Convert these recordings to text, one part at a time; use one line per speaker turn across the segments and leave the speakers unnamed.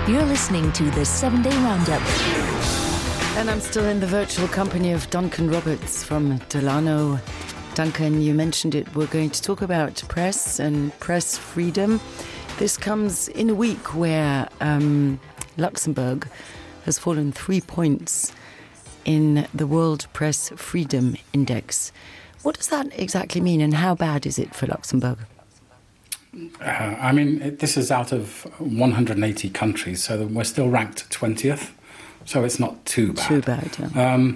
You're listening to the 7-Day Roundup.
And I'm still in the virtual company of Duncan Roberts from Delano. Duncan, you mentioned it. We're going to talk about press and press freedom. This comes in a week where Luxembourg has fallen 3 points in the World Press Freedom Index. What does that exactly mean, and how bad is it for Luxembourg?
This is out of 180 countries, so we're still ranked 20th, so it's not too bad.
Too bad, yeah.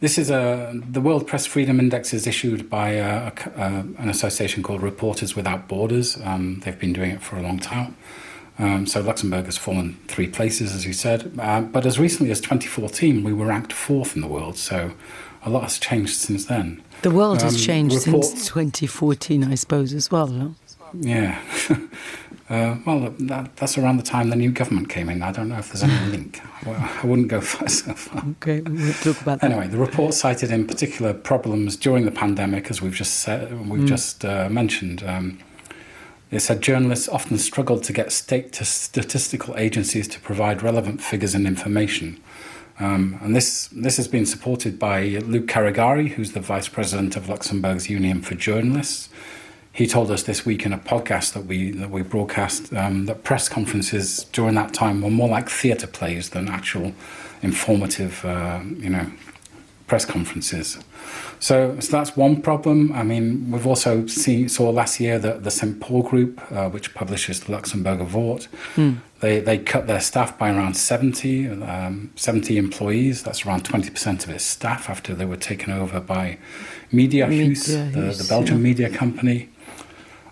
The World Press Freedom Index is issued by an association called Reporters Without Borders. They've been doing it for a long time. So Luxembourg has fallen 3 places, as you said. But as recently as 2014, we were ranked 4th in the world, so a lot has changed since then.
The world has changed since 2014, I suppose, as well, no?
Yeah. That's around the time the new government came in. I don't know if there's any link. Well, I wouldn't go so far.
Okay, we'll talk about that.
Anyway, the report cited in particular problems during the pandemic, as we've just mentioned. It said journalists often struggled to get statistical agencies to provide relevant figures and information. And this has been supported by Luc Carigari, who's the vice president of Luxembourg's Union for Journalists. He told us this week in a podcast that we broadcast that press conferences during that time were more like theatre plays than actual informative, press conferences. So that's one problem. I mean, we've also saw last year that the St. Paul Group, which publishes the Luxembourger Wort, they cut their staff by around 70 employees. That's around 20% of its staff after they were taken over by Mediahuis, the Belgian media company.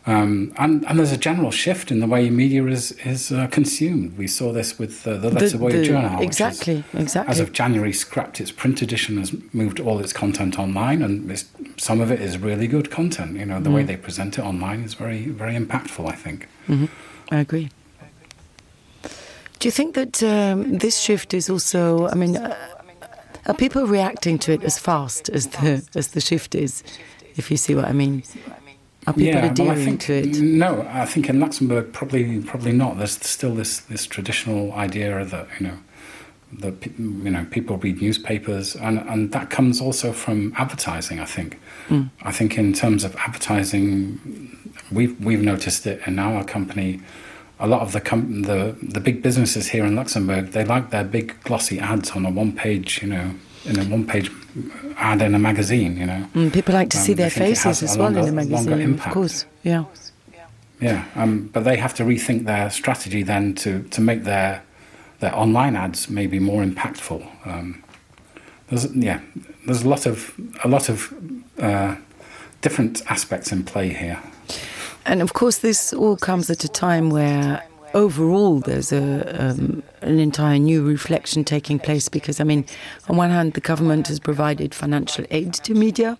And there's a general shift in the way media is consumed. We saw this with the Letzeboje Journal,
exactly.
As of January, scrapped its print edition, has moved all its content online, and some of it is really good content. You know, the way they present it online is very, very impactful, I think.
Mm-hmm. I agree. Do you think that this shift is also? I mean, are people reacting to it as fast as the shift is? If you see what I mean. Are people adhering to it?
No, I think in Luxembourg probably not. There's still this traditional idea that people read newspapers, and that comes also from advertising. I think. I think in terms of advertising, we've noticed it in our company. A lot of the big businesses here in Luxembourg, they like their big glossy ads on a one-page, in a one-page ad in a magazine,
people like to see their faces as well in a magazine, of course. Yeah.
Yeah, but they have to rethink their strategy then to make their online ads maybe more impactful. There's a lot of different aspects in play here.
And of course, this all comes at a time where overall there's an entire new reflection taking place, because, I mean, on one hand, the government has provided financial aid to media,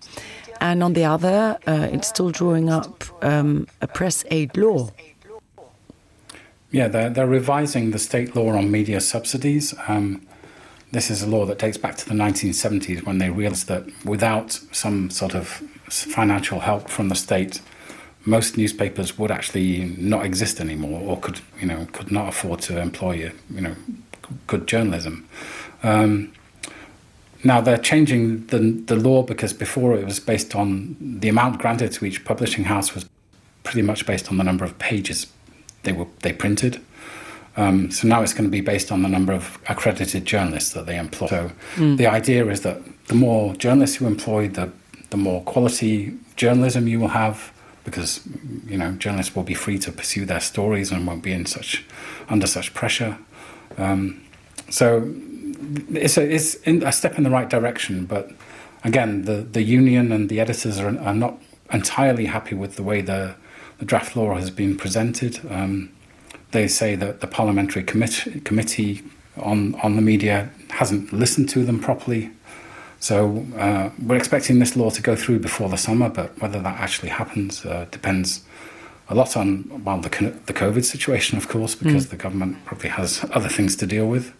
and on the other, it's still drawing up a press aid law.
Yeah, they're revising the state law on media subsidies. This is a law that dates back to the 1970s, when they realised that without some sort of financial help from the state, most newspapers would actually not exist anymore, or could not afford to employ good journalism. Now they're changing the law, because before it was based on the amount granted to each publishing house was pretty much based on the number of pages they printed. So now it's going to be based on the number of accredited journalists that they employ. So the idea is that the more journalists you employ, the more quality journalism you will have, because journalists will be free to pursue their stories and won't be under such pressure. So it's a step in the right direction, but again, the union and the editors are not entirely happy with the way the draft law has been presented. They say that the parliamentary committee on the media hasn't listened to them properly. So we're expecting this law to go through before the summer, but whether that actually happens depends a lot on the COVID situation, of course, because the government probably has other things to deal with.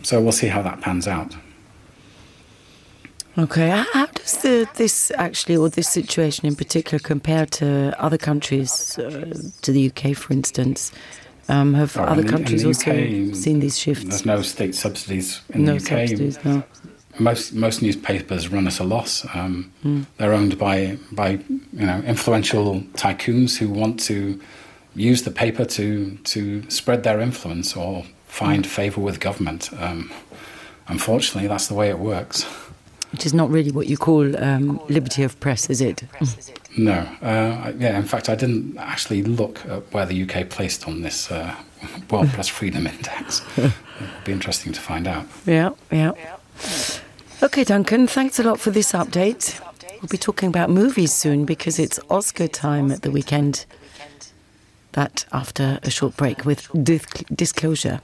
So we'll see how that pans out.
Okay, how does this situation in particular compare to other countries, to the UK, for instance? Have other
in
countries
the
also
UK,
seen these shifts?
There's no state subsidies in
No
the UK.
subsidies, no.
Most newspapers run at a loss. They're owned by influential tycoons who want to use the paper to spread their influence or find favour with government. Unfortunately, that's the way it works.
Which is not really what you call liberty of press, is it?
No. In fact, I didn't actually look at where the UK placed on this World Press Freedom Index. It'll be interesting to find out.
Yeah. OK, Duncan, thanks a lot for this update. We'll be talking about movies soon because it's Oscar time at the weekend. That after a short break with Disclosure.